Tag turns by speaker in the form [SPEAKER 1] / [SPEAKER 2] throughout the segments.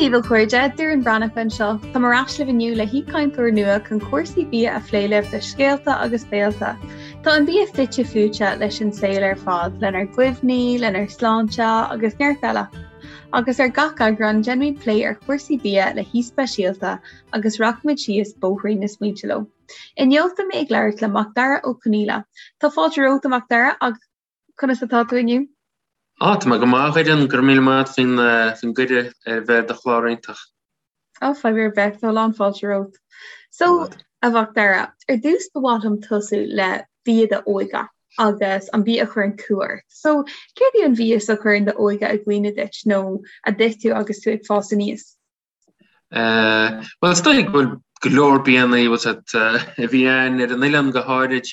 [SPEAKER 1] daoibh a chairde, Doireann Breathnach anseo. Táim ar ais libh inniu le haoichainteoir nua chun cúrsaí bia a phlé libh le scéalta agus béilte. Tá an bia fite fuaite leis an saol ar fad, lenár gcuimhní, lenár sláinte agus neart eile. Agus ar gach eagrán déanfaimid plé ar chúrsaí bia le haoi speisialta agus rachaimid síos bóithrín na smaointe leo. Inniu tá mé ag labhairt le Macdara Ó Conaola. Tá fáilte romhat a Mhacdara agus conas atá tú inniu?
[SPEAKER 2] Á, tá mé go maith, a Dhoireann, go raibh míle maith agat faoin gcuireadh ar bheith ar do chlár iontach.
[SPEAKER 1] Á, fadhb ar bith, tá a lán fáilte romhat. So, a Mhacdara, ar dtús ba mhaith liom tosú le bia d'óige agus an bia a chuireann cumha ort. So, céard é an mhias a chuireann d'óige i gcuimhne duit nó a d'ith tú agus tú ag fás aníos?
[SPEAKER 2] Bhuel, is dóigh go bhfuil go leor bianna a bhí ann ar an oileán go háirid.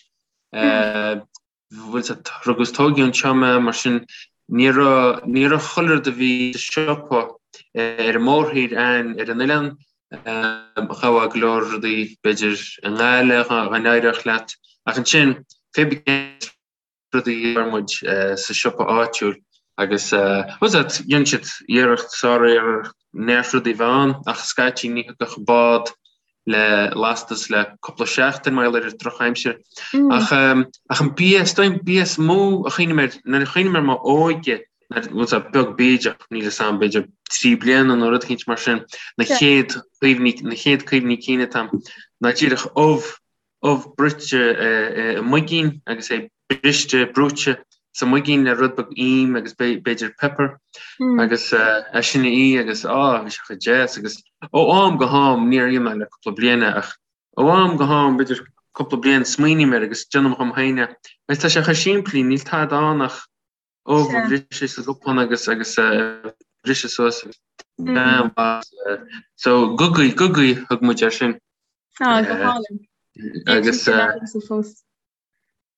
[SPEAKER 2] Bhfuil 's agat, rugadh is tógadh anseo mé, mar sin ní raibh, ní raibh chuile rud a bhí sa siopa ar an mórthír ann ar an oileán. Gheofá go leor rudaí b'fhéidir i nGaillimh dá n-éireodh leat ach ansin pé ar bith rudaí a fuair muid sa siopa áitiúil agus bhfuil 's agat, dhein siad iarracht, sár-iarracht neart rudaí a bheith ann ach scaití ní thiocfadh bád le lastas le cúpla seachtain mar gheall ar an drochaimsir. Ach ach an bia, is dóigh an bia is mó a chuimhním air, nuair a chuimhním ar m'óige, bhfuil 's agat, beag bídeach, níl 'fhios a'm, b'fhéidir 3 bliana nó rud eicínt mar sin, na chéad chuimhní, na chéad cuimhní cinn atá a'm, ná díreach ubh, ubh bruite i muigín agus é briste, brúite sa muigín le rud beag im agus b'fhéidir pepper agus é sin a ithe agus á bhí sé chomh deas agus ó am go ham níor ith mé le cúpla bliain é ach ó am go ham b'fhéidir cúpla bliain smaoiním air agus déanaim dhom féin é agus tá sé chomh simplí níl tada ann ach ubh a bhriseadh sa gcupán agus agus a bhriseadh suas agus so gogaí gogaí thug muid air sin.
[SPEAKER 1] Á go hálainn. Agus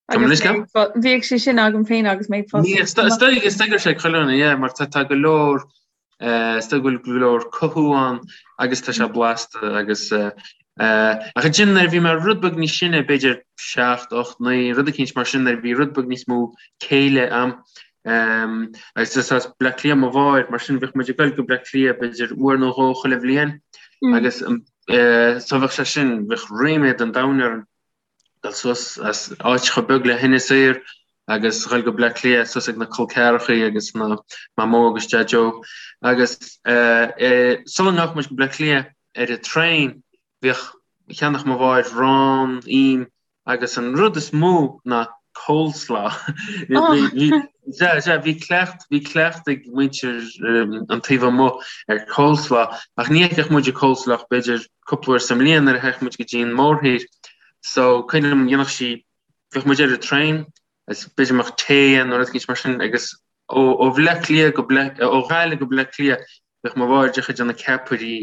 [SPEAKER 1] Bhíodh sé sin agam féin agus mé ag
[SPEAKER 2] fás. Is dóigh is dóigh go raibh sé ag chuile dhuine, yeah, mar tá go leor is dóigh go bhfuil go leor cothú ann agus tá sé blasta agus ach ansin nuair a bhí mé rud beag níos sine, b'fhéidir 7, 8, 9, rud eicínt mar sin nuair a bhí rud beag níos mó céille a'm agus is as Bleá Cliath mo mháthair, mar sin bheadh muid ag dul go Bleá Cliath b'fhéidir uair nó dhó chuile bhliain agus so bheadh sé sin, bheadh ríméad an domhain orm. dul suas as áit chomh beag le hInis Oírr agus dhul go Bleá Cliath suas ag na col ceathrachaí agus na Mamó agus Deaideo agus sula ngabhadh muid go Bleá Cliath ar an traein bhíodh cheannach mo mháthair arán, im agus an rud is mó ná coleslaw. Sea, sea, bhí cleacht, bhí cleacht ag muintir an taobh amuigh ar coleslaw ach ní fheicfeadh muid an coleslaw ach b'fhéidir cúpla uair sa mbliain nuair a théadh muid go dtí an mórthír. So cuimhin liom dhéanfadh sí, bheadh muid ar an traein agus b'fhéidir go mbeadh tae ann nó rud eicínt mar sin agus ó ó Bhleá Cliath go Bleá, ó Ghaillimh go Bleá Cliath bheadh mo mháthair díreach ag déanamh ceapairí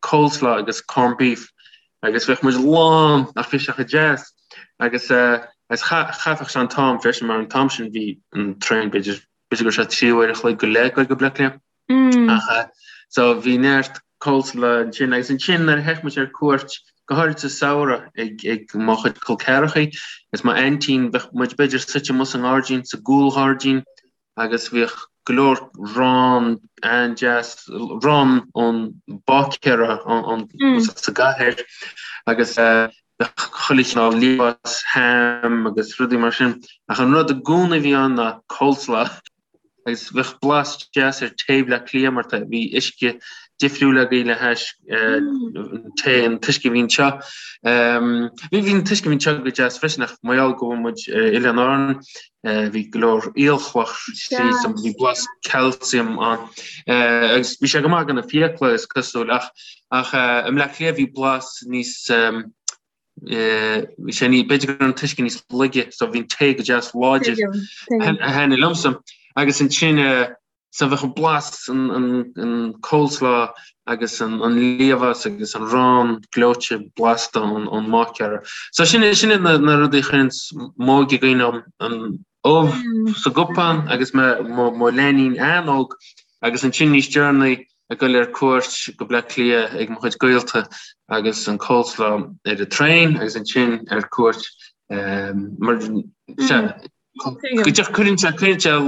[SPEAKER 2] coleslaw agus corned beef agus bheadh muid lán ach bhí sé chomh deas agus agus chaithfeadh sé an t-am freisin mar an t-am sin bhí an traein b'fhéidir b'fhéidir go raibh sé 3 uair a chloig go leith ag dul go Bleá Cliath. Ach so bhí neart coleslaw ansin agus ansin nuair a théadh muid ar cuairt, go háirid sa samhradh ag ag mo chuid col ceathrachaí agus m'aintín, bheadh muid b'fhéidir suite amuigh sa ngairdín, sa gcúlghairdín agus bhíodh go leor arán an-deas, arán ón báicéara ón sa gcathair agus bheadh chuile chineál liamhás, ham agus rudaí mar sin ach an rud i gcónaí a bhí ann ná coleslaw. agus bheadh blas deas ar tae Bhleá Cliath mar tá bhí uisce difriúil agaibh le hais tae an t-uisce a bhí anseo. Bhí bhí an t-uisce a bhí anseo go deas freisin ach mar gheall go bhfuil muid ar Oileáin Árann bhí go leor aolchloch tríd so bhí blas calcium ann agus bhí sé go maith do na fiacla is cosúil ach ach i mBleá Cliath bhí blas níos Bhí sé ní, b'fhéidir go raibh an t-uisce níos laige so bhí an tae go deas láidir a thaitnigh liomsa. Agus ansin so bheadh an blas an coleslaw agus an liamhás agus an arán gleoite blasta ón mbáicéara. So sin sin iad na rudaí a chuireann m'óige i gcuimhne dom, an ubh sa gcupán agus mé mo leainín an-óg agus ansin níos deireanaí ag dul ar cuairt go Bleá Cliath ag mo chuid gaolta agus an coleslaw ar an traein agus ansin ar cuairt mar go díreach cuireann sé cuireann sé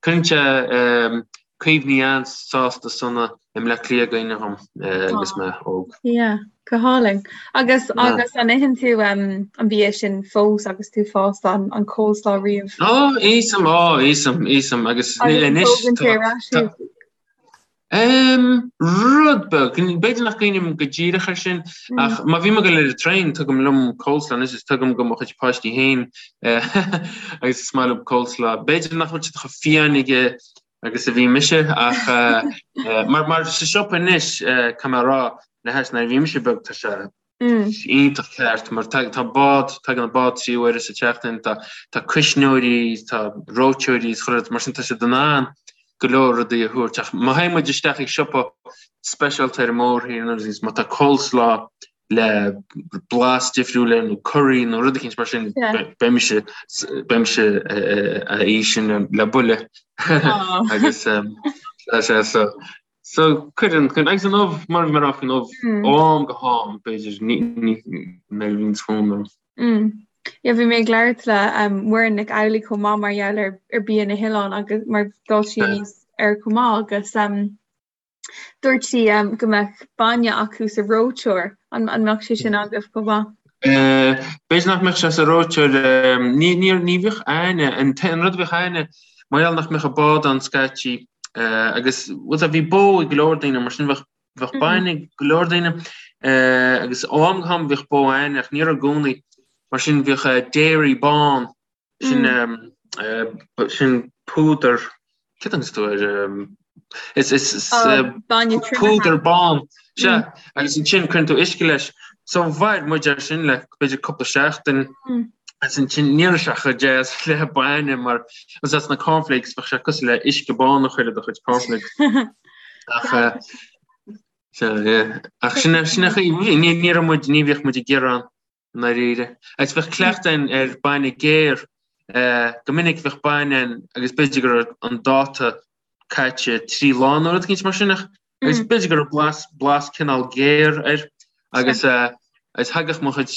[SPEAKER 2] cuireann sé cuimhní an-sásta sona. i mBleá Cliath i gcuimhne dhom agus mé óg.
[SPEAKER 1] Yeah, go hálainn. Agus agus an itheann tú an bia sin fós agus tú fásta an an coleslaw
[SPEAKER 2] riamh? Ó, íosaim, ó, íosaim, íosaim agus anois tá Rud beag, b'fhéidir nach gcuimhním go díreach ar sin, ach má bhím ag dul ar an traein tugaim liom coleslaw anois is tugaim do mo chuid páistí féin agus is maith leo coleslaw. B'fhéidir nach bhfuil siad chomh fiáin aige agus a bhí mise ach mar mar sa siopa anois caithfidh mé a rá le hais nuair a bhí mise beag tá sé iontach ceart mar tá tá bád tagann an bád 3 uaire sa tseachtain tá tá cuisneoirí tá reoiteoirí is chuile rud mar sin tá siad in ann go leor rudaí a thabhairt ach má théann muid isteach ag siopa speisialta ar an mórthír nó má tá coleslaw le blas difriúil air nó curry nó rud eicínt mar sin beidh mise beidh mise á ithe sin le buille agus sé so so cuireann cuireann agus an ubh mar mar an ubh ó am go ham b'fhéidir ní ní nuair a bhíonn fonn
[SPEAKER 1] orm. Yeah, bhí mé ag labhairt le um, Muireann Nic Amhlaigh chomh maith mar gheall ar, ar bia na hoileán agus mar d'fhás sí aníos air chomh maith agus um, Dúirt sí go mbeadh bainne acu sa reoiteoir. An mbeadh sé sin agaibh chomh
[SPEAKER 2] maith? B'fhéidir nach mbeadh sé sa reoiteoir. Ní ní bhíodh a'inne, an rud a bhíodh a'inne, mar gheall nach mbeadh an bád ann scaití agus bhuel bhí bó ag go leor daoine mar sin bheadh bheadh bainne ag go leor daoine agus ó am go ham bhíodh bó a'inne ach ní raibh i gcónaí. Mar sin bhíodh dairy bán Sin sin púdar cad a thugann tú air is is púdar bán sea agus ansin cuireann tú uisce leis. So mhair muid ar sin le b'fhéidir cúpla seachtain agus ansin ní raibh sé chomh deas le bainne mar agus as na cornflakes bheadh sé cosúil le uisce bán a chur i do chuid cornflakes. Ach sea ach sin sin ní ní raibh muid ní bhíodh muid ag gearán i ndáiríre. Agus bheadh cleachtadh a'inn ar bainne géar. Go minic bheadh bainne ann agus b'fhéidir go raibh an dáta caite 3 lá nó rud eicínt mar sin ach agus b'fhéidir go raibh blas, blas cineál géar air agus agus thagadh mo chuid,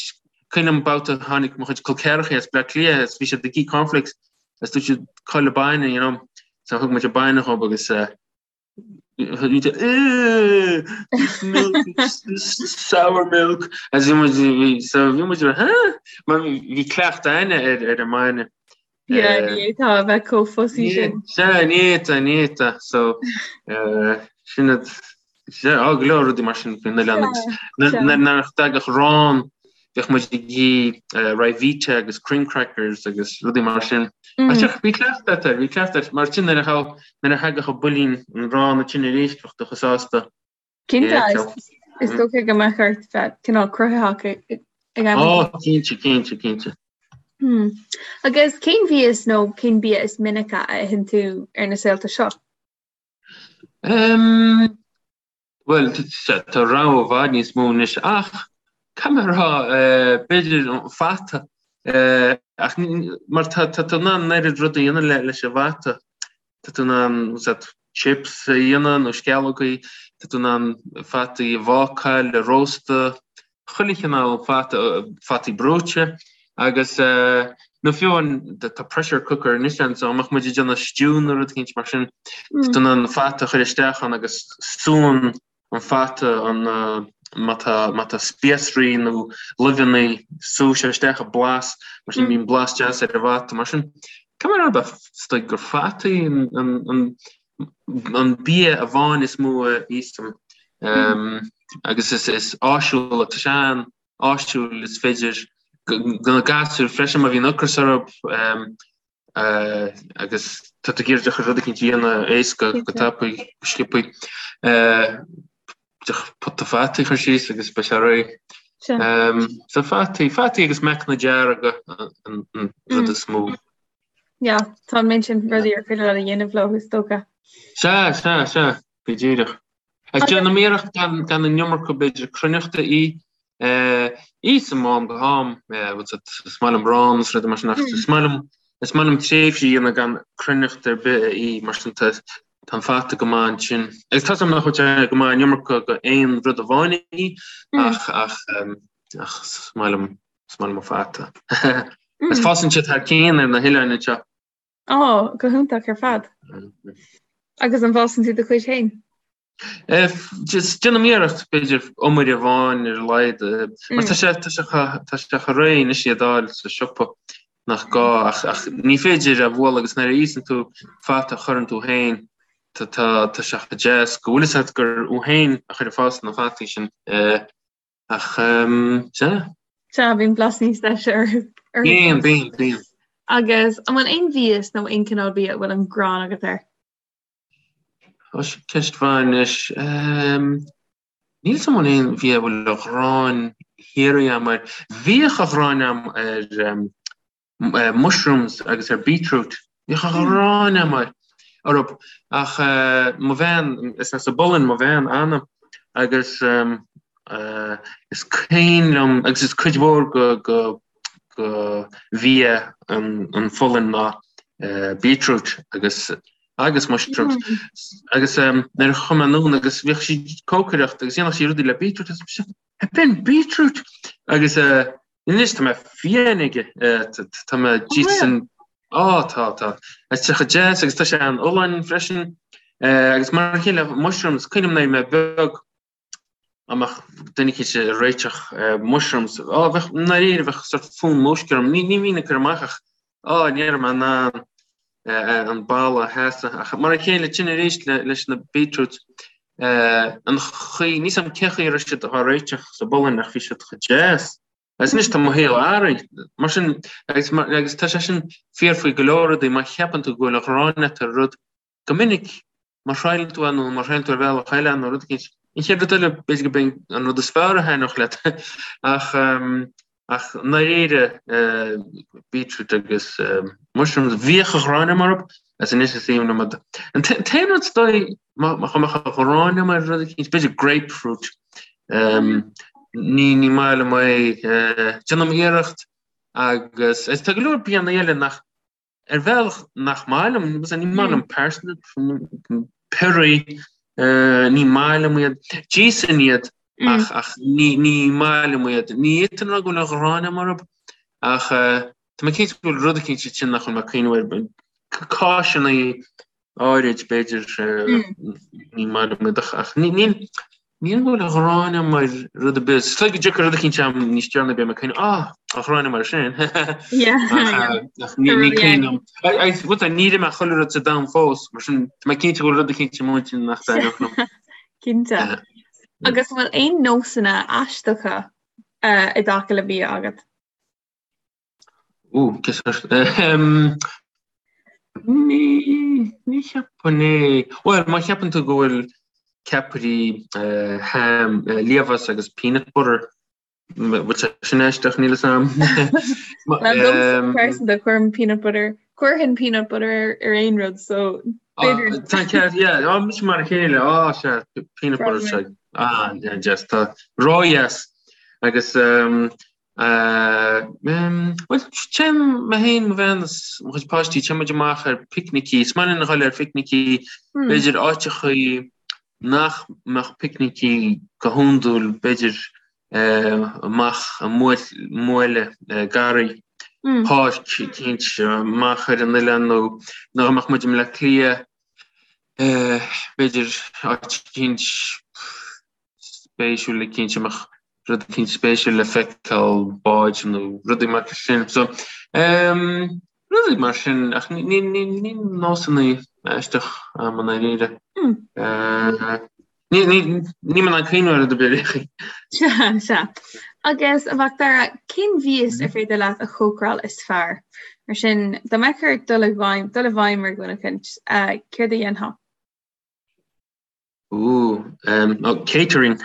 [SPEAKER 2] cuimhin liom babhta tháinig mo chuid col ceathracha as Bleá Cliath agus bhí siad ag ithe cornflakes agus dúirt siad cá bhfuil an bainne, you know, so thug muid an bainne dhób agus This milk is sour milk. As bhí muid bhí so bhí muid huh? Mar bhí cleachtadh a'inne ar ar an mbainne.
[SPEAKER 1] Yeah, ní fhéadfá a bheith chomh fussy sin.
[SPEAKER 2] Sea, ní fhéadfá, ní fhéadfá. So sin iad sea, á go leor rudaí mar sin faoin oileán agus nuair nach dtagadh arán Bheadh muid ag ithe Ryvita agus cream crackers agus rudaí mar sin. Ach bhí cleachtadh air, bhí cleachtadh air. Mar sin nuair a thagadh an builín an arán ansin arís bheadh tú chomh sásta.
[SPEAKER 1] Cinnte, is dócha go mbeadh ort bheith cineál cruthaitheach
[SPEAKER 2] ag am. Ó, cinnte, cinnte, cinnte.
[SPEAKER 1] Hmm. Agus cén mhias nó cén bia is minice a itheann tú ar na saolta seo?
[SPEAKER 2] Um, Bhuel, tá rogha i bhfad níos mó anois ach caithfidh mé a rá, b'fhéidir an fata, ach mar tá tú in ann an oiread rudaí a dhéanamh leis an bhfata. Tá tú in ann chips a dhéanamh nó sceallógaí, tá tú in ann fataí a bhácáil, a róstadh, chuile chineál fata, fataí brúite agus nó fiú amháin tá pressure cooker anois ann so dá mbeadh muid ag déanamh stew nó rud eicínt mar sin tá tú in ann an fata a chur isteach ann agus súnn an fata an má tá má tá spíosraí nó luibheanna súfaidh sé isteach an blas mar sin bíonn blas deas ar an bhfata mar sin caithfidh mé a rá is dóigh gur fataí an an an an bia amháin is mó a íosaim agus is is áisiúil tá sé an-áisiúil is féidir do na gasúir freisin má bhíonn ocras orthu agus tá tú ag iarraidh rud eicínt a dhéanamh éasca go tapaidh go sciobthaí pota fataí a chur síos agus beidh sé réidh. So fataí, fataí agus meacanna dearga an rud is mó.
[SPEAKER 1] Yeah, tá an méid sin rudaí ar féidir leat a dhéanamh leo is dócha.
[SPEAKER 2] Sea, sea, sea, go díreach. Agus déanaim iarracht gan gan an iomarca b'fhéidir cruithneachta a ithe. Íosaim ó am go ham, is maith liom arán is rudaí mar sin ach is maith liom is maith liom tréimhsí a dhéanamh gan cruithneacht ar bith a ithe mar sin tá tá an fata go maith ansin. Agus tá 's agam nach bhfuil sé go maith an iomarca de aon rud amháin a ithe ach ach ach is maith liom Is maith liom an fata. Is fásann siad thar cionn ar na hoileáin
[SPEAKER 1] anseo. Ó, go hiontach ar fad. Agus an bhfásann tú do chuid féin?
[SPEAKER 2] Just déanaim iarracht b'fhéidir iomaire amháin ar a laghad mar tá sé tá sé tá sé chomh réidh anois iad a fháil sa siopa nach gá ach ach ní féidir a bhualadh agus nuair a íosann tú fata a chuireann tú féin tá tá tá sé chomh deas go bhfuil fhios agat gur thú féin a chuir ag fás na fataí sin ach sea.
[SPEAKER 1] Sea, bíonn blas níos deise orthu.
[SPEAKER 2] Bíonn, bíonn, bíonn.
[SPEAKER 1] Agus an bhfuil aon mhias nó aon cineál bia a bhfuil an ghráin agat air?
[SPEAKER 2] Tá sin ceist mhaith anois. Níl 'fhios a'm an bhfuil aon bhia a bhfuil an ghráin shíoraí a'm air. Bhíodh an ghráin a'm ar mushrooms agus ar beetroot. Bhíodh an ghráin a'm air orthu. Ach mo bhean, is as an bPolainn mo bhean, Anna, agus is cuimhin liom, agus is cuid mhór go go bhia an Pholainn ná beetroot agus agus mushrooms agus nuair a chuaigh mé anonn agus bhíodh sí ag cócaireacht agus dhéanadh sí rudaí le beetroot agus mise b'in beetroot agus anois tá mé fiáin aige tá mé dísan á tá tá is tá sé chomh deas agus tá sé an-fholláin freisin agus mar a chéile mushrooms cuimhin liom nuair a bhí mé beag Dá mbeadh duine eicínt ag réiteach mushrooms, á, bheadh, i ndáiríre, bheadh sort fonn múisce orm. Ní, ní bhínn ag cur amach ach, á, ní raibh mé in ann an boladh a sheasamh. Ach mar a chéile, sin arís leis na beetroots, an chaoi, níl 's a'm cén chaoi a raibh siad á réiteach sa bPolainn ach bhí siad chomh deas. Agus anois tá mo shaol athraithe. Mar sin, agus, agus tá sé sin fíor faoi go leor rudaí, má cheapann tú go bhfuil an ghráin agat ar rud, Go minic, má thriaileann tú é nó má thriaileann tú ar bhealach eile nó rud eicínt, an chéad rud eile, b'fhéidir gurb é an rud is fearr a thaitneodh leat. Ach, ach i ndáiríre, beetroot agus mushrooms, bhíodh an ghráin agam orthu, agus anois is aoibhinn liom iad. An t-aon rud is dóigh, má mbeadh an ghráin agam ar rud eicínt, b'fhéidir grapefruit. Ní, ní maith liom é. Déanaim iarracht agus, tá go leor bianna eile nach, Ar bhealach nach maith liom, ní maith liom parsnip, piorraí, ní maith liom iad. D'íosfainn iad ach ach ní ní maith liom iad. Ní fhéadfainn a rá go bhfuil an ghráin agam orthu ach tá mé cinnte go bhfuil rud eicínt ansin nach bhfuil mé ag cuimhneamh air. Cáiseanna áirid b'fhéidir ní maith liom iad ach ní ní Ní bhfuil an ghráin agam ar rud ar bith. Is dóigh go dtiocfaidh rud eicínt agam níos deireanaí beidh mé ag cuimhneamh, ah, an ghráin agam air sin. Ach ní cuimhin liom. Níor ith mé chuile rud sa domhan fós, mar sin tá mé cinnte go bhfuil rud eicínt i m'intinn nach dtaitneodh
[SPEAKER 1] liom. Cinnte. Agus an bhfuil aon nósanna aisteacha i dtaca le bia agat?
[SPEAKER 2] Ó, ní, ní cheapfainn é. Bhuel, má cheapann tú go bhfuil ceapairí ham, liamhás agus peanut butter, bhfuil sé sin aisteach, níl 'fhios a'm.
[SPEAKER 1] Well, domsa pearsanta, cuirim peanut butter, cuirfinn peanut butter ar aon rud, so
[SPEAKER 2] b'fhéidir. Tá ceart, yeah, á, mise mar a chéile, á, sea, peanut butter, sea, ah, yeah, just, tá ródheas. Agus, Bhuel, téim mé féin, mo bhean is mo chuid páistí, téann muid amach ar picnicí. Is maith linn a dhul ar phicnicí, b'fhéidir áiteachaí nach mbeadh picnicí go hiondúil, b'fhéidir amach i mbuaile garraí, páirc eicínt amach ar an oileán nó nó dá mbeadh muid i mBleá Cliath, b'fhéidir áit eicínt spéisiúil eicínt a mbeadh rud eicínt spéisiúil le feiceáil, báid nó rudaí mar sin. So, um, rudaí mar sin, ach ní, ní, ní, ní nósanna aisteach a'm i ndáiríre. Mm. Uh, ní, ní, níl mé in ann cuimhneamh ar rud ar bith.
[SPEAKER 1] Sea, sea. Agus a Mhacdara, cén mhias ar féidir leat a chócaráil is fearr? Mar sin, dá mbeadh ort dul i bhfeidhm, dul i bhfeidhm ar dhuine eicínt, uh, céard a dhéanfá?
[SPEAKER 2] Ooh, um, oh, catering.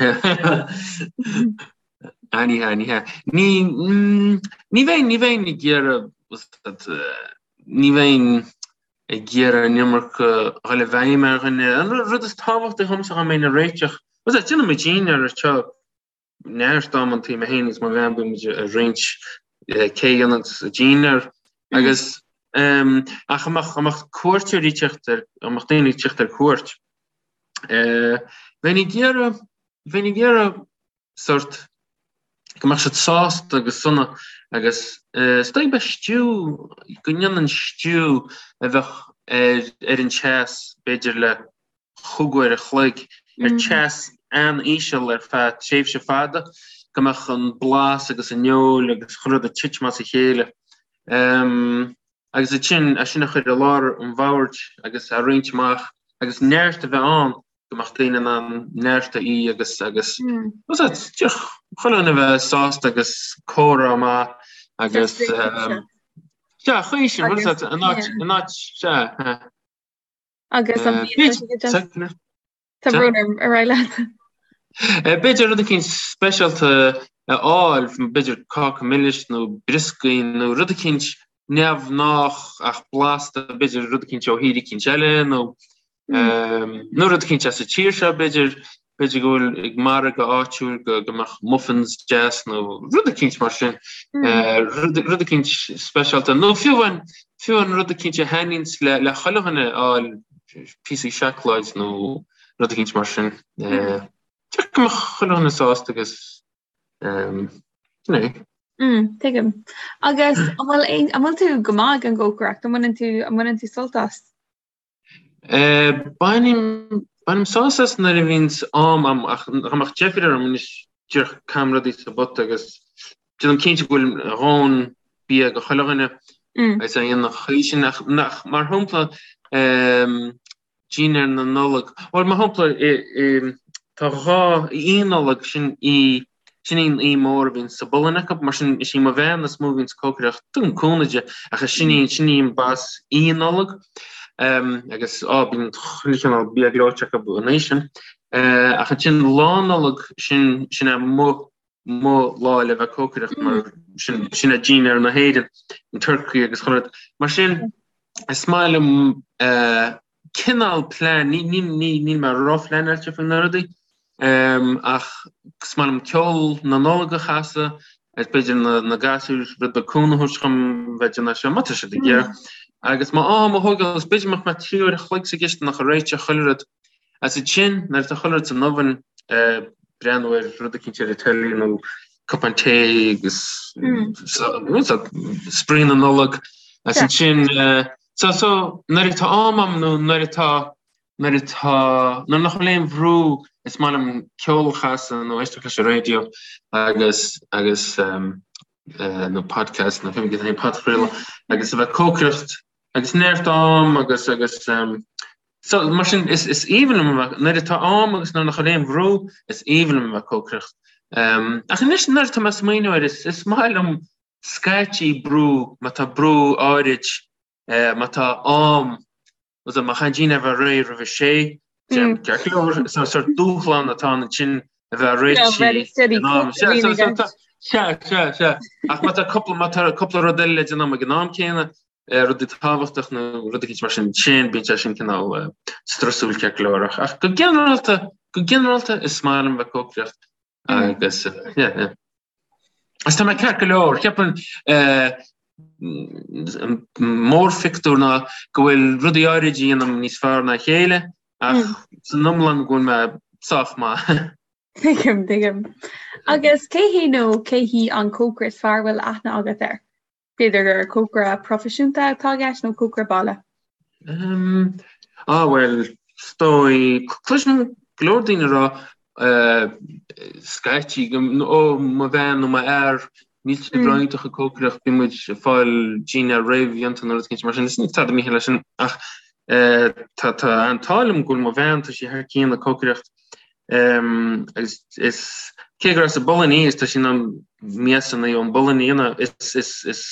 [SPEAKER 2] Ah, ní hea, ní hea. Ní, mm, ní bheinn, ní bheinn ag iarraidh, ní bheinn ag iarraidh an iomarca a dhul i bhfeidhm ar dhuine. An rud is tábhachtaí dhomsa dá mbeinn ag réiteach, déanann muid dinnéar anseo neart amantaí mé féin agus mo bhean bíonn muid ag roinnt cé a dhéanann dinnéar agus ach dá mbeadh dá mbeadh cuairteoirí ag teacht ar dá mbeadh daoine ag teacht ar cuairt bheinn ag iarraidh bheinn ag iarraidh sort go mbeadh siad sásta agus sona agus is dóigh beidh stew go ndéanfainn stew a bheadh ar ar an teas b'fhéidir le chúig uair a chloig. ar teas an-íseal ar feadh tréimhse fada, go mbeadh an blas agus an fheoil agus chuile rud ag titim as a chéile. Agus ansin é sin a chur i lár an bhoird agus a roinnt amach agus neart a bheith ann go mbeadh daoine in ann neart a ithe agus agus chuile dhuine a bheith sásta agus comhrá maith agus sea, chaoi sin, an áit, an áit, sea.
[SPEAKER 1] Agus an Tá brón orm ar aghaidh leat.
[SPEAKER 2] B'fhéidir rud eicínt speisialta a fháil, b'fhéidir cáca milis nó brioscaí nó rud eicínt neamhghnách ach blasta, b'fhéidir rud eicínt ó thír eicínt eile nó nó rud eicínt as an tír seo, b'fhéidir, b'fhéidir go bhfuil ag margadh áitiúil go go mbeadh muffins deas nó rud eicínt mar sin, rud eicínt speisialta nó fiú amháin fiú amháin rud eicínt a thaitníonns le le chuile dhuine a fháil, píosaí seacláid nó rud eicínt mar sin. Go mbeadh chuile dhuine sásta agus sin
[SPEAKER 1] é. Tuigim. Agus an bhfuil an bhfuil tú go maith ag an gcócaireacht? An mbaineann tú an mbaineann tú sult as?
[SPEAKER 2] Bainim bainim sásamh as nuair a bhíonns am a'm ach dá mbeadh deifir orm anois díreach caithim rudaí sa bpota agus déanaim cinnte go bhfuil a dhóthain bia do chuile dhuine agus é an chaoi sin ach nach mar shampla dinnéar na Nollag bhuel mar shampla tá dhá Oíche Nollag sin í Sin í an oíche mór a bhíonn sa bPolainn acu, mar sin is í mo bhean is mó a bhíonn ag cócaireacht, tugaim cúnamh di, ach is sin í, sin í an boss Oíche Nollag agus á bíonn chuile chineál bia gleoite acu an oíche sin. Ach ansin Lá Nollag, sin, sin é mo, mo lá le bheith ag cócaireacht mar sin, sin é dinnéar na hÉireann, an turcaí agus chuile rud. Mar sin is maith liom cineál plean, níl mé róphleanáilte faoi na rudaí, ach is maith liom ceol na Nollag a chasadh agus b'fhéidir na gasúir rud beag cúnamh a thabhairt dhom bheith ag déanamh seo, má tá siad ag iarraidh. Agus má am a thógáil, is b'fhéidir mbeadh mé 3 uair a chloig sa gcisteanach ag réiteach chuile rud. Agus ansin, nuair atá chuile rud san oven, breathnú ar rud eicínt ar an teilí nó cupán tae agus spraoi na Nollag. Agus ansin, So, so, nuair atá am a'm nó nuair atá, nuair atá, nuair nach bhfuil aon bhrú is maith liom ceol a chasadh nó éisteacht leis an raidió agus, agus ehm, eh, nó podcast nó fiú aon podchraoladh agus a bheith ag cócaireacht agus neart am agus, agus ehm, so, mar sin is, is aoibhinn liom a bheith, nuair atá am agus nuair nach bhfuil aon bhrú is aoibhinn liom a bheith ag cócaireacht. Ehm, ach anois nuair atá mé ag smaoineamh air is, is maith liom scaití brú, má tá brú áirid, má tá am, má chaithfidh dinnéar a bheith réidh roimh a sé, ceart go leor, is sórt dúshlán atá ann ansin a bheith réitithe in am. Sea, sea, sea, sea. Ach má tá cúpla, má tá cúpla rud eile le déanamh ag an am céanna, rudaí tábhachtach nó rud eicínt mar sin, sin, bíonn sé sin cineál strusúil ceart go leor. Ach go ginearálta, go ginearálta is maith liom bheith ag cócaireacht agus, yeah, yeah. Agus tá mé ceart go leor, ceapaim an mórphictiúr ná go bhfuil rudaí áirid a dhéanaim níos fearr ná a chéile ach san iomlán go bhfuil mé sách maith.
[SPEAKER 1] Tuigim, tuigim. Agus cé hé nó cé hí an cócaire is fearr a bhfuil aithne agat air? B'fhéidir gur cócaire proifisiúnta atá i gceist nó cócaire baile?
[SPEAKER 2] Ah bhuel, is dóigh, cloisim go leor daoine ag rá scaití, ó mo bhean nó mo fhear, níl siad ró-iontach ag cócaireacht, bíonn muid ag fáil dinnéar réamhdhéanta nó rud éicint mar sin, is níl tada mícheart leis sin ach tá an t-ádh liom go bhfuil mo bhean, tá sí thar cionn ag cócaireacht. Agus is cé gur as an bPolainn í, is tá sí in ann miasanna ón bPolainn a dhéanamh, is is is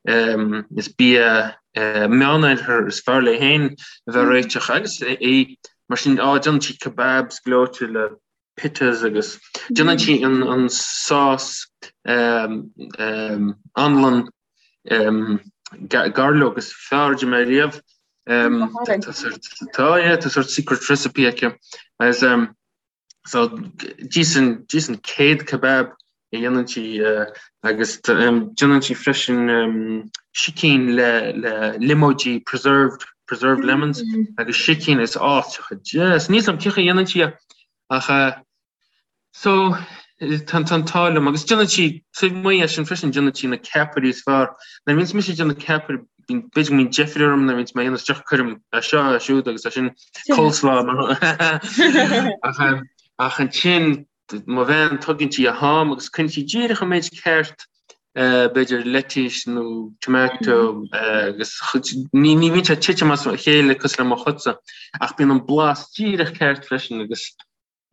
[SPEAKER 2] is bia Meánoirthear is fearr léi féin a bheith ag réiteach agus í mar sin á déanann sí kebabs gleoite le pitas agus déanann sí an an sás anlann gairleog is fearr a d'ith mé riamh. Tá yeah, tá sort secret recipe aici. Agus so d'íos an d'íos an céad kebab a dhéanann sí agus déanann sí freisin sicín le le liomóidí preserved preserved lemons agus sicín is áiteacha deas. Níl 's a'm cén chaoi a dhéanann sí é ach So, tá an t-ádh liom, agus déanann sí, taobh amuigh de sin freisin, déanann sí na ceapairí is fearr. Nuair a bhíonns mise ag déanamh ceapaire b'fhéidir go mbíonn deifir orm nuair a bhíonns mé á dhéanamh isteach cuirim é seo é siúd agus é sin coleslaw ach ach ansin mo bhean tugann sí a ham agus cuireann sí díreach an méid ceart b'fhéidir lettuce nó tomato agus ní ní bhíonn sé ag titim as a chéile cosúil le mo chuidse ach bíonn an blas díreach ceart freisin agus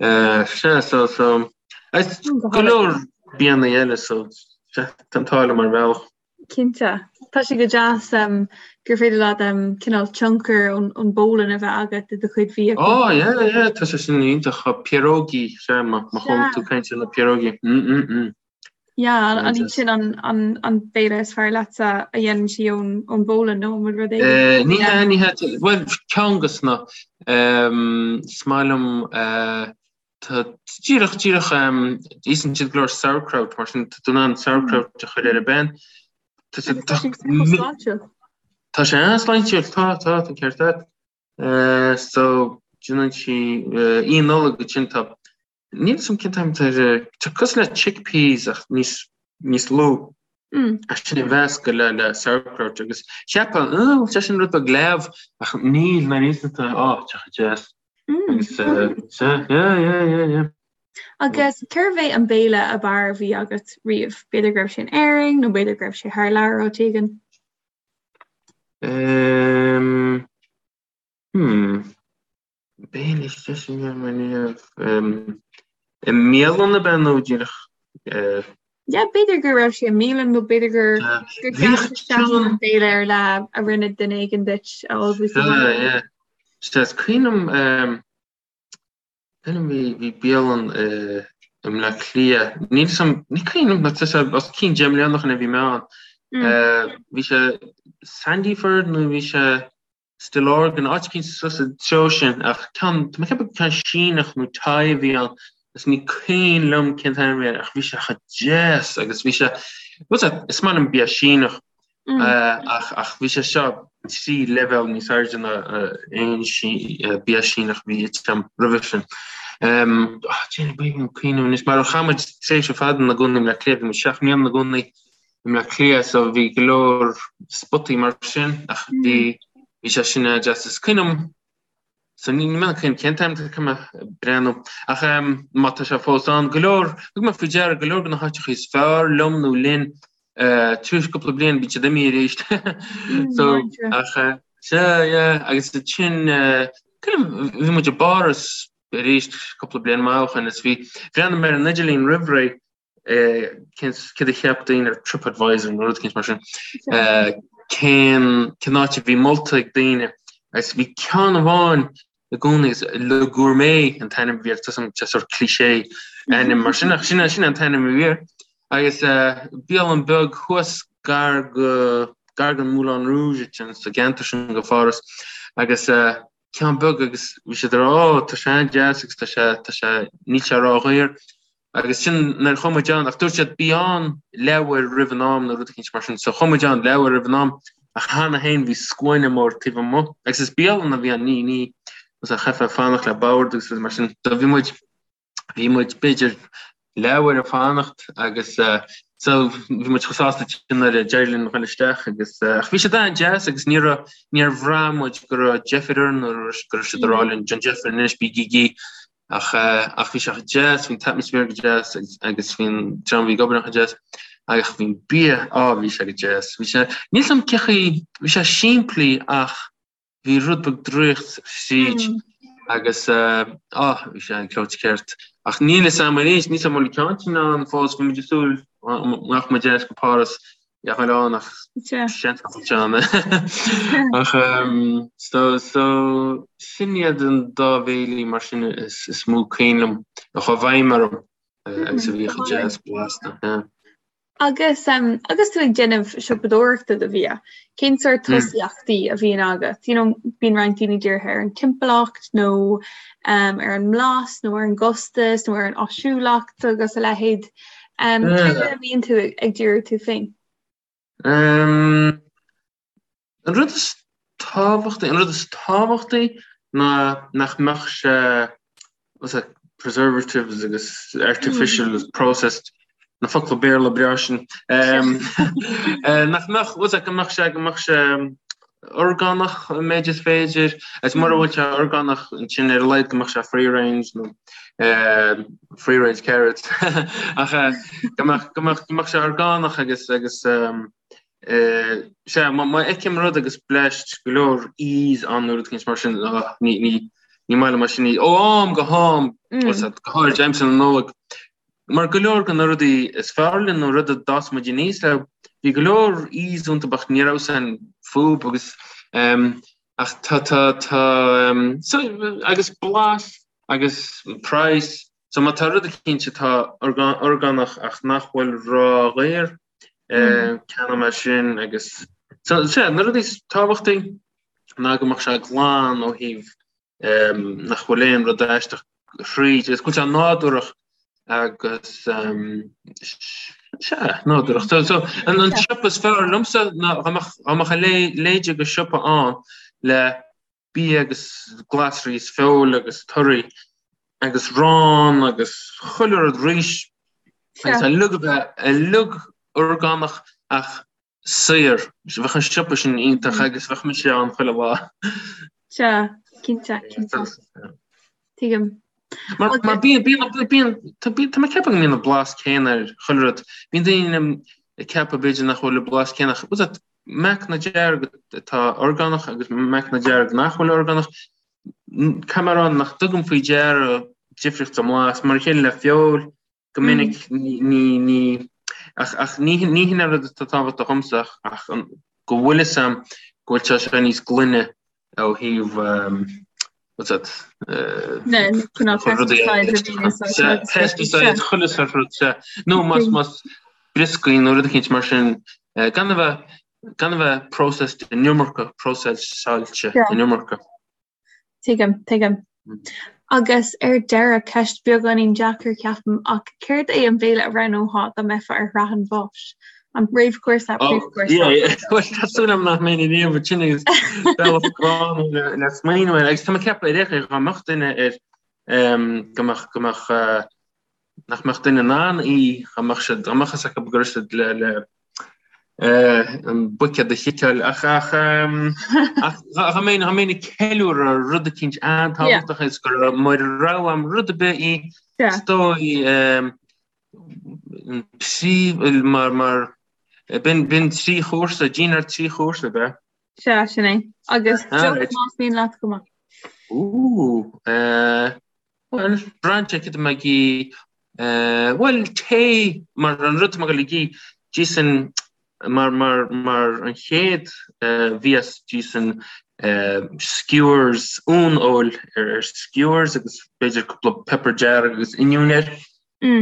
[SPEAKER 2] Sea, so, so, agus go leor bianna eile, so, sea, tá an t-ádh liom ar bhealach.
[SPEAKER 1] Cinnte. Tá sé go deas gur féidir leat cineál tionchar ón bPólainn a bheith agat i do chuid bhia.
[SPEAKER 2] Ó, yeah, yeah, tá sé sin iontach. Pierogi, sea, má chuala tú caint ar na pierogi. Mm, mm, mm.
[SPEAKER 1] Yeah, an iad sin an an béile is fearr leatsa a dhéanann sí ón ón bPólainn nó an bhfuil rud
[SPEAKER 2] éigin? Ní hea, ní hea, bhuel ceann dos na, is maith liom tá díreach díreach íosann siad go leor sauerkraut mar sin tá tú in ann sauerkraut a chur ar an bpan.
[SPEAKER 1] Tá sé sláintiúil.
[SPEAKER 2] Tá sé an-sláintiúil, tá, tá, tá ceart agat. So déanann sí Oíche Nollag ansin tá Níl 'fhios a'm cén t-ainm atá air, tá cosúil le chickpeas ach níos, níos lú. Ach sin a mheascadh le, le sauerkraut agus cheapfá, oh, tá sin rud beag leamh ach níl, nuair a íosann tú é, oh, tá sé deas. Agus, sea, yeah, yeah, yeah, yeah.
[SPEAKER 1] Agus cérbh é an béile ab fhearr a bhí agat riamh? B'fhéidir go raibh sé in Éirinn nó b'fhéidir go raibh sé thar lear áit éigin?
[SPEAKER 2] Um, hmm. Béile is deise a bhí agam i mbialann ab ea nó díreach?
[SPEAKER 1] Yeah, b'fhéidir go raibh sé i mbialann nó b'fhéidir gur gur
[SPEAKER 2] Bhíodh
[SPEAKER 1] ceann béile ar leith a rinne duine éigin duit a ullmhú sa bhaile.
[SPEAKER 2] Yeah. Sea, is cuimhin liom cuimhin liom bhí bhí bialann i i mBleá Cliath. Níl 'fhios a'm ní cuimhin liom tá sé os cionn 10 mbliana ó shin a bhí mé ann. Bhí sé Sandyford nó bhí sé Stillorgan, áit eicínt suas sa treo sin, ach ceann, tá mé ag ceapadh ceann Síneach nó Thai a bhí ann, agus ní cuimhin liom cén t-ainm a bhí air, ach bhí sé chomh deas agus bhí sé, bhuel, is maith liom bia Síneach, ach, ach bhí sé seo trí leibhéal níos airde ná aon bia Síneach a bhí ite agam roimhe sin. Déanfaidh mé cuimhneamh anois, mar chaith muid tréimhse fada ina gcónaí i mBleá Cliath, bhí muid 7 mbliana ina gcónaí i mBleá Cliath so bhí go leor spotaí mar sin ach bhí bhí sé sin an-deas. Is cuimhin liom so ní mé cuimhin cén t-ainm tá mé breathnú ach má tá sé fós ann go leor thug mé faoi deara go leor de na háiteacha is fearr liom nó linn tar éis cúpla bliain bíonn siad imithe arís so ach sea yeah agus ansin bhí muid i bPáras arís cúpla bliain maith ó shin is bhí bhreathnaigh mé ar an idirlíon roimh ré céard a cheap daoine ar TripAdvisor nó rud eicínt mar sin, cén cén áit a bhí molta ag daoine agus bhí ceann amháin i gcónaí agus Le Gourmet an t-ainm a bhí air, tá sé sort cliché ainm mar sin ach sin sin an t-ainm a bhí air agus bialann beag thuas gar go gar don Moulin Rouge ansin sa gceantar sin de Pháras agus ceann beag agus bhí siad ag rá ó tá sé an-deas agus tá sé tá sé níl sé ródhaor Agus sin nuair a chuaigh muid ann, ach dúirt siad bí ann leathuair roimh an am nó rud eicínt mar sin. So chuaigh muid ann leathuair roimh an am ach cheana féin bhí scuaine mór taobh amuigh. Agus is bialann a bhí ann, ní, ní, chaithfeá fanacht le bord agus rudaí mar sin. So bhí muid, bhí muid b'fhéidir leathuair ag fanacht agus so bhí muid chomh sásta sin nuair a d'éirigh linn dhul isteach agus ach bhí siad an-deas agus ní raibh, níor bhraith muid go raibh deifir orainn nó go raibh siad ag rá linn déan deifir anois bígí Ach ach bhí sé chomh deas, bhí an t-atmaisféar go deas agus bhí an dream a bhí ag obair ann chomh deas agus bhí an bia, á bhí sé go deas. Bhí sé, níl 's a'm cén chaoi, bhí sé simplí ach bhí rud beag draíocht thríd agus á bhí sé an gleoite ceart. Ach níl 'fhios a'm arís, níl 's a'm an bhfuil an ceann sin ann fós, bhí muid ag súil go mbeadh muid ar ais go Páras Ag dul ann ach seans nach bhfuil sé ann. Ach so so sin iad an dá bhéilí mar sin is is mó cuimhin liom a chuaigh i bhfeidhm orm agus a bhí chomh deas blasta. Yeah.
[SPEAKER 1] Agus agus tú ag déanamh siopadóireachta do bhia, cén sórt tosaíochtaí a bhíonn agat? You know, bíonn roinnt daoine dírithe ar an timpeallacht nó ar an mblas nó ar an gcostas nó ar an áisiúlacht agus a leithéid. Cé air a mbíonn tú ag díriú tú féin?
[SPEAKER 2] An rud is tábhachtaí, an rud is tábhachtaí ná nach mbeadh sé, what's that, preservatives agus artificial processed. Na focla Béarla breá sin. Nach mbeadh, bhfuil go mbeadh sé, go mbeadh sé orgánach an méid is féidir, agus mura bhfuil sé orgánach ansin ar a laghad go mbeadh sé free range nó free range carrots ach go mbeadh, go mbeadh, go mbeadh sé orgánach agus, agus sea, má fheicim rud agus bleaist go leor E's ann nó rud éicint mar sin, ní, ní, ní maith liom é sin. Ó am go ham, go háirid aimsir na Nollag, Mar go leor de na rudaí is fearr linn nó rud a d'fhás muid aníos leo, bhí go leor E's iontu ach ní raibh san fúb agus ach tá tá tá so agus blas agus praghas so má tá rud eicínt atá orgánach ach nach bhfuil ródhaor ceannóidh mé sin agus so sea na rudaí is tábhachtaí ná go mbeadh sé glan ó thaobh nach bhfuil aon rud aisteach thríd, agus go bhfuil sé nádúrach agus sea, nádúrach. So, so an, an siopa is fearr liomsa ná dá mbeadh, dá mbeadh a leithéid de siopa ann le bia agus glasraí is feoil agus torthaí agus arán agus chuile rud rís agus uilig a bheith uilig orgánach ach saor. Bheadh an siopa sin iontach agus bheadh mise ann chuile
[SPEAKER 1] lá. Sea, cinnte, cinnte. Tuigim.
[SPEAKER 2] Mar mar bíonn bíonn bíonn tá bíonn tá mé ag ceapadh go mbíonn an blas céanna ar chuile rud. Bíonn daoine ag ceapadh b'fhéidir nach bhfuil an blas céanna ach bhfuil meacanna dearg atá orgánach agus meacanna dearg nach bhfuil orgánach. Caithfidh mé a rá nach dtugaim faoi deara difríocht sa mblas mar a chéile le feoil Go minic ní, ní, ach, ach ní, ní hin an rud atá tábhachtach dhomsa ach, ach an, go bhfuil fhios a'm go bhfuil sé seo níos glaine ó thaobh, what's that, pesticides, chuile sort rud, sea. Nó más, más brioscaí nó rud eicínt mar sin, gan a bheith, gan a bheith processed an iomarca, próiseáilte an iomarca.
[SPEAKER 1] Tuigim, tuigim. Agus ar deireadh, ceist beagáinín deacair, ceapaim, ach céard é an béile a roghnófá dá mbeifeá ar shraith an bháis? An réamhchúrsa,
[SPEAKER 2] príomhchúrsa? Bhuel, tá súil agam nach mbeinn riamh ansin agus bealach gránna le le smaoineamh air. Agus tá mé ag ceapadh ar aon chaoi dá mbeadh duine ar go mbeadh go mbeadh nach mbeadh duine in ann í, dá mbeadh siad, dá mbeadh fhios acu go raibh siad le, le an buicéad a chiceáil ach, ach, ach dá mbeinn, dá mbeinn ag ceiliúradh rud eicínt an-tábhachtach is go raibh mar rogha a'm rud ar bith í, is dóigh, an príomh, mar, mar, b'in, b'in trí chúrsa, dinnéar trí chúrsa, ab ea?
[SPEAKER 1] Sea, sin é. Agus deoch más mian leat chomh maith.
[SPEAKER 2] Ooh, Bhuel, braitheann sé cad tá mé ag ithe, bhuel, tae, mar an rud atá mé ag dul ag ithe, d'íosfainn, mar, mar, mar an chéad mhias, d'íosfainn skewers, uan-fheoil ar, ar skewers agus b'fhéidir cúpla pepper dearg agus oinniún air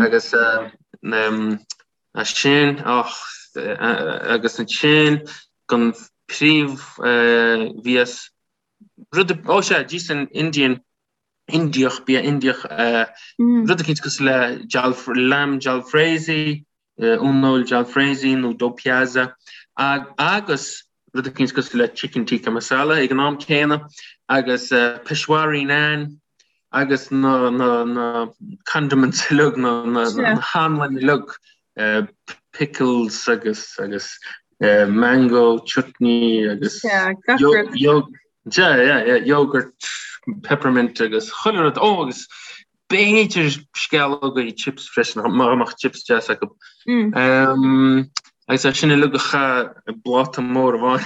[SPEAKER 2] agus as sin, och, agus ansin don phríomh-mhias, rud, ó sea, d'íosfainn Indian, Indiach, bia Indiach, rud eicínt cosúil le lamb jalfrezi, uan-fheoil jalfrezi nó do piazza, agus rud eicínt cosúil le chicken tikka masala ag an am céanna, agus peshwari naan, agus na na na condiments uilig, na na na hanlain uilig, pickles agus agus mango chutney agus Yeah, yeah, yeah, yogurt, peppermint agus chuile rud. Ó, agus b'fhéidir sceallógaí chips freisin, má mbeadh chips deas acu. Mm. Agus é sin uilig a chaitheamh i bpláta mór amháin.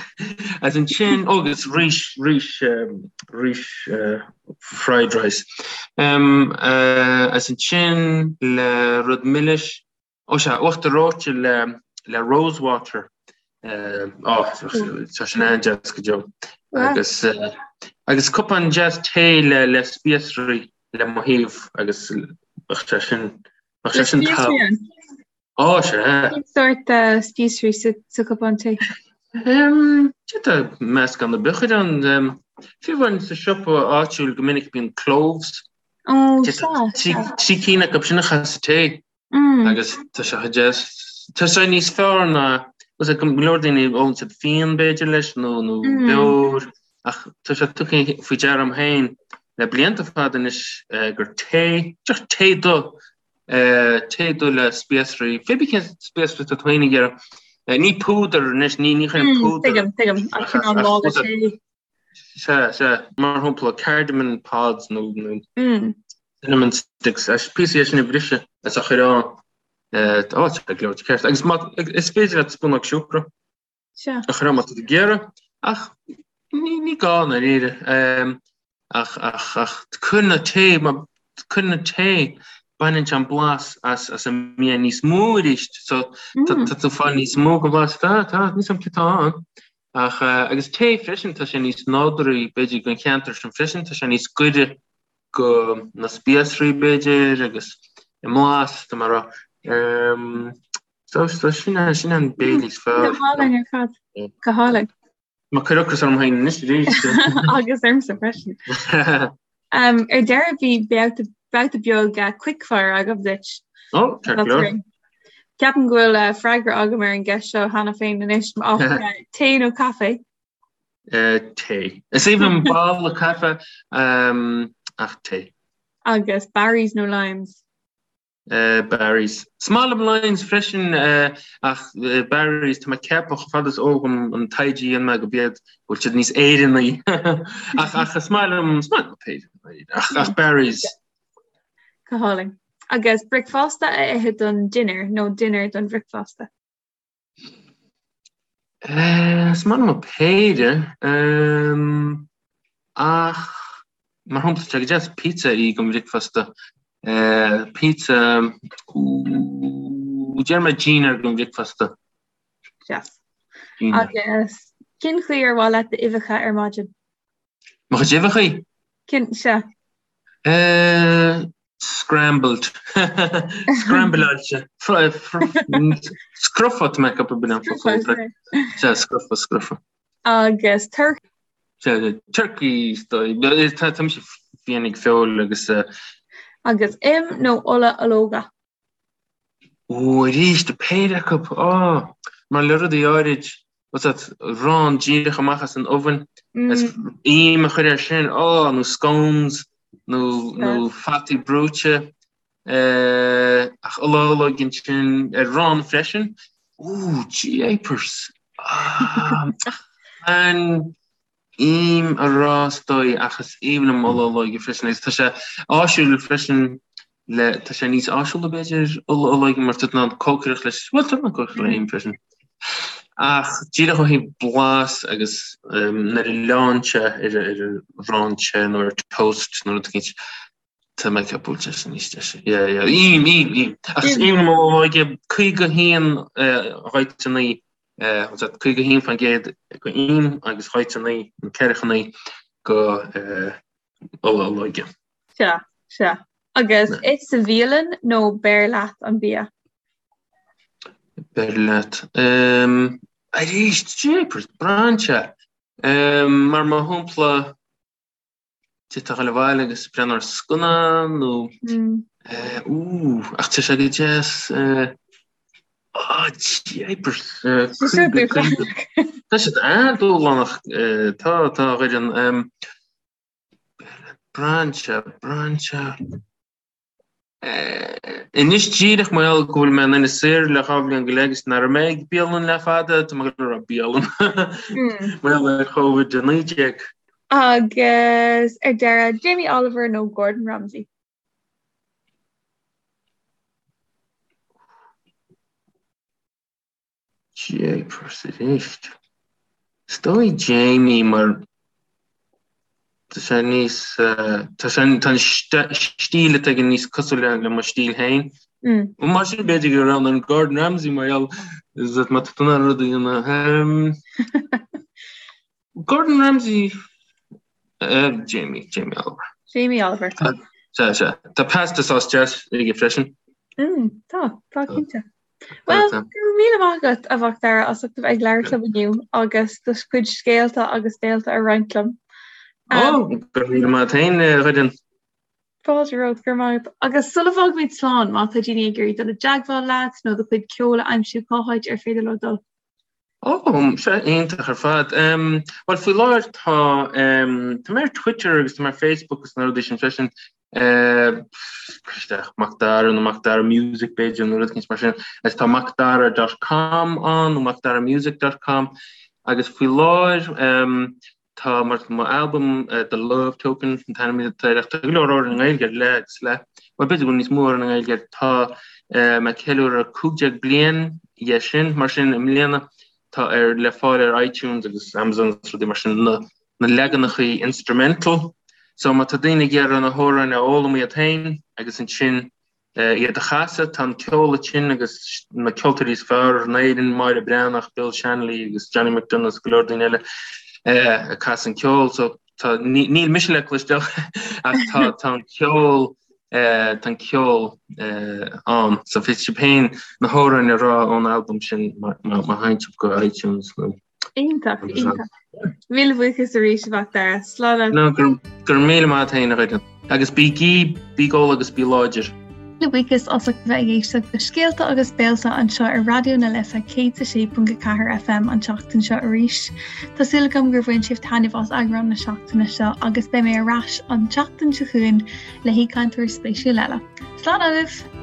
[SPEAKER 2] Agus ansin, ó, agus rís, rís, rís fried rice. Agus ansin le rud milis, Ó sea, uachtar reoite le le rosewater. Ó, tá sin an-deas go deo. Agus agus cupán deas tae le le spíosraí le mo thaobh agus bheadh sé sin bheadh sé sin
[SPEAKER 1] tá.
[SPEAKER 2] Ó sea.
[SPEAKER 1] Cén sórt spíosraí sa sa cupán tae?
[SPEAKER 2] Tá meascán ar bith a chur ann. Fiú amháin sa siopa áitiúil go minic bíonn cloves.
[SPEAKER 1] Ó sea, sea.
[SPEAKER 2] Trí cinn acu sin a chaitheamh sa tae. Agus tá sé chomh deas. Tá sé níos fearr ná, tá go leor daoine ólann siad fíon b'fhéidir leis nó nó beoir ach tá sé tugtha faoi deara agam féin le blianta fada anois gur tae, deoch tae dubh. Tae dubh le spíosraí, pé bith cén spíosraí atá tú féin ag iarraidh. Ní púdar anois, ní ní chuirim púdar.
[SPEAKER 1] Tuigim, tuigim, ach cineál mála tae.
[SPEAKER 2] Sea, sea, mar shampla cardamom pods nó nó cinnamon sticks, píosaí é sin a bhriseadh is a chur ann. Ó, tá gleoite ceart. Agus má, is féidir leat spúnóg siúcra.
[SPEAKER 1] Sea.
[SPEAKER 2] A chur ann má tá tú ag iarraidh, ach ní, ní gá i ndáiríre. Ach, ach, ach cuireann an tae, má cuireann an tae, baineann sé an blas as, as an mbia níos mó arís. So, tá, tá tú ag fáil níos mó den bhlas. Tá, tá, níl a fhios agam cé tá ann. Ach, agus tae freisin, tá sé níos nádúraí, b'fhéidir, don cheantar sin freisin, tá sé níos gaire go na spíosraí, b'fhéidir, agus i mblas, tá mé ag rá. So, so sin é, sin an béile is
[SPEAKER 1] fearr. Go hálainn ar fad. Go hálainn.
[SPEAKER 2] Tá mé ag cur ocras orm féin anois
[SPEAKER 1] arís. Agus ormsa freisin. Um, ar deireadh bhí babhta babhta beag uh, quickfire agam duit.
[SPEAKER 2] Ó, ceart go leor.
[SPEAKER 1] Ceapaim go bhfuil uh, freagra agam ar an gceist seo cheana féin anois ach uh, tae nó caife?
[SPEAKER 2] Uh, tae. Is aoibhinn liom boladh caife um, ach tae.
[SPEAKER 1] Agus Barry's nó Lyons?
[SPEAKER 2] Barry's. Is maith liom Lyons freisin ach Barry's, tá mé ag ceapadh chomh fada is eol dom an taighde a dhein mé go b'iad go bhfuil siad níos Éireannaí ach ach is maith liom is maith liom péire ach ach Barry's.
[SPEAKER 1] Go hálainn. Agus bricfeasta a ithe don dinnéar nó dinnéar don bhricfeasta?
[SPEAKER 2] Is maith liom an péire, ach mar shampla tá sé go deas pizza a ithe don bhricfeasta. Pizza, déarfaidh mé dinnéar don bhricfeasta.
[SPEAKER 1] Deas. Agus cén chaoi ar mhaith leat d'uibheacha ar maidin?
[SPEAKER 2] Mo chuid uibheacha?
[SPEAKER 1] Cén, sea.
[SPEAKER 2] Scrambled. Scrambleáilte. Scrofa tá mé ag ceapadh b'in an focal. Sea, scrofa, scrofa.
[SPEAKER 1] Agus
[SPEAKER 2] turcaí. Sea, turcaí, tá mise fiáin ag feoil agus.
[SPEAKER 1] Agus im nó ola ológa?
[SPEAKER 2] Ó, arís, péire acu, á, mar le rudaí áirid, what's that, arán díreach amach as an oven, is im a chur air sin, á, nó scones, nó, nó fataí brúite, eh, ach ola olóige ansin, ar arán freisin, ó, jeepers, ah, an, im a rá is dóigh ach is aoibhinn liom ola olóige freisin agus tá sé áisiúil freisin le tá sé níos áisiúla b'fhéidir ola olóige mar tá tú in ann cócaireacht leis bhuel tá tú in ann cócaireacht le im freisin ach díreach ó thaobh blas agus nuair a leánn sé ar ar arán te nó ar toast nó rud éicint tá mé ag ceapadh go bhfuil sé sin níos deise. Yeah, yeah. Im, im, im. Ach is aoibhinn liom ola olóige 51 29 51% go im agus 29 nó 49 go ola olóige.
[SPEAKER 1] Sea, sea. Agus ith sa bhialann nó beir leat an bia?
[SPEAKER 2] Beir leat. Arís, jeepers, braitheann sé. Mar mar shampla, D'fhéadfá a dhul abhaile agus breathnú ar scannán nó ú ach tá sé go deas jeepers Tá siad an-dúshlánach tá tá a Dhoireann braitheann sé braitheann sé. Anois díreach mar gheall go bhfuil mé in Inis Oírr le 2 bhliain go leith agus nach raibh mé ag bialann le fada, tá mé ag rá bialann mar gheall ar Covid-19.
[SPEAKER 1] Agus ar deireadh, Jamie Oliver nó Gordon Ramsay?
[SPEAKER 2] Jeepers arís. Is dóigh Jamie mar tá sé níos tá sé tá an stíl atá aige níos cosúil le mo stíl féin. Mar sin b'fhéidir go roghnóinn Gordon Ramsay mar gheall is that má tá tú in ann rud a dhéanamh. Gordon Ramsay Jamie Jamie Oliver.
[SPEAKER 1] Jamie Oliver.
[SPEAKER 2] Sea sea. Tá pasta sauce deas aige freisin.
[SPEAKER 1] Tá tá cinnte. Well, go raibh míle maith agat a Mhac Dara as ucht a bheith ag labhairt liom inniu agus do chuid scéalta agus béalta a roinnt liom.
[SPEAKER 2] Ó, go raibh míle maith agat féin, a Dhoireann.
[SPEAKER 1] Fáilte romhat, go raibh maith agat. Agus sula bhfágaimid slán, má tá daoine ag iarraidh dul i dteagmháil leat nó do chuid ceoil a aimsiú, cá háit ar féidir leo dul?
[SPEAKER 2] Ó, sea, iontach ar fad. Bhuel, faoi láthair tá, tá mé ar Twitter agus tá mé ar Facebook agus na rudaí sin freisin. Isteach Macdara nó Macdara Music b'fhéidir nó rud éicint mar sin. Agus tá macdara dot com ann nó macdaramusic dot com agus faoi láthair tá mar mo albam The Love Token an t-ainm atá air ach tá go leor amhrán i nGaeilge air le agus le bhuel b'fhéidir go bhfuil níos mó amhrán i nGaeilge air tá mé ag ceiliúradh 15 bliain dhe sin mar sin i mbliana tá ar le fáil ar iTunes agus Amazon agus rudaí mar sin na na leaganachaí instrumental so má tá daoine ag iarraidh na hamhráin a fhoghlaim iad féin agus ansin iad a chasadh, tá an ceol ansin agus na ceoltóirí is fearr in Éirinn, Máire Breathnach, Bill Shanley agus Johnny McDonagh agus go leor daoine eile ag casadh an ceol so tá níl mise le cloisteáil ach tá tá an ceol tá an ceol ann so féadfaidh sibh féin na hamhráin a rá ón albam sin má má théann sibh go iTunes nó
[SPEAKER 1] Iontach, iontach. Míle buíochas arís a Mhacdara.
[SPEAKER 2] Slán leat. No, go raibh míle maith agat féin a Dhoireann. Agus bígí, bí ag ól agus bí láidir.
[SPEAKER 1] Míle buíochas as ucht a bheith ag éisteacht le Scéalta agus Béalta anseo ar Raidió na Life 106.4 FM an tseachtain seo arís. Tá súil agam gur bhain sibh taitneamh as eagrán na seachtaine seo agus beidh mé ar ais an tseachtain seo chugainn le haoichainteoir spéisiúil eile. Slán agaibh!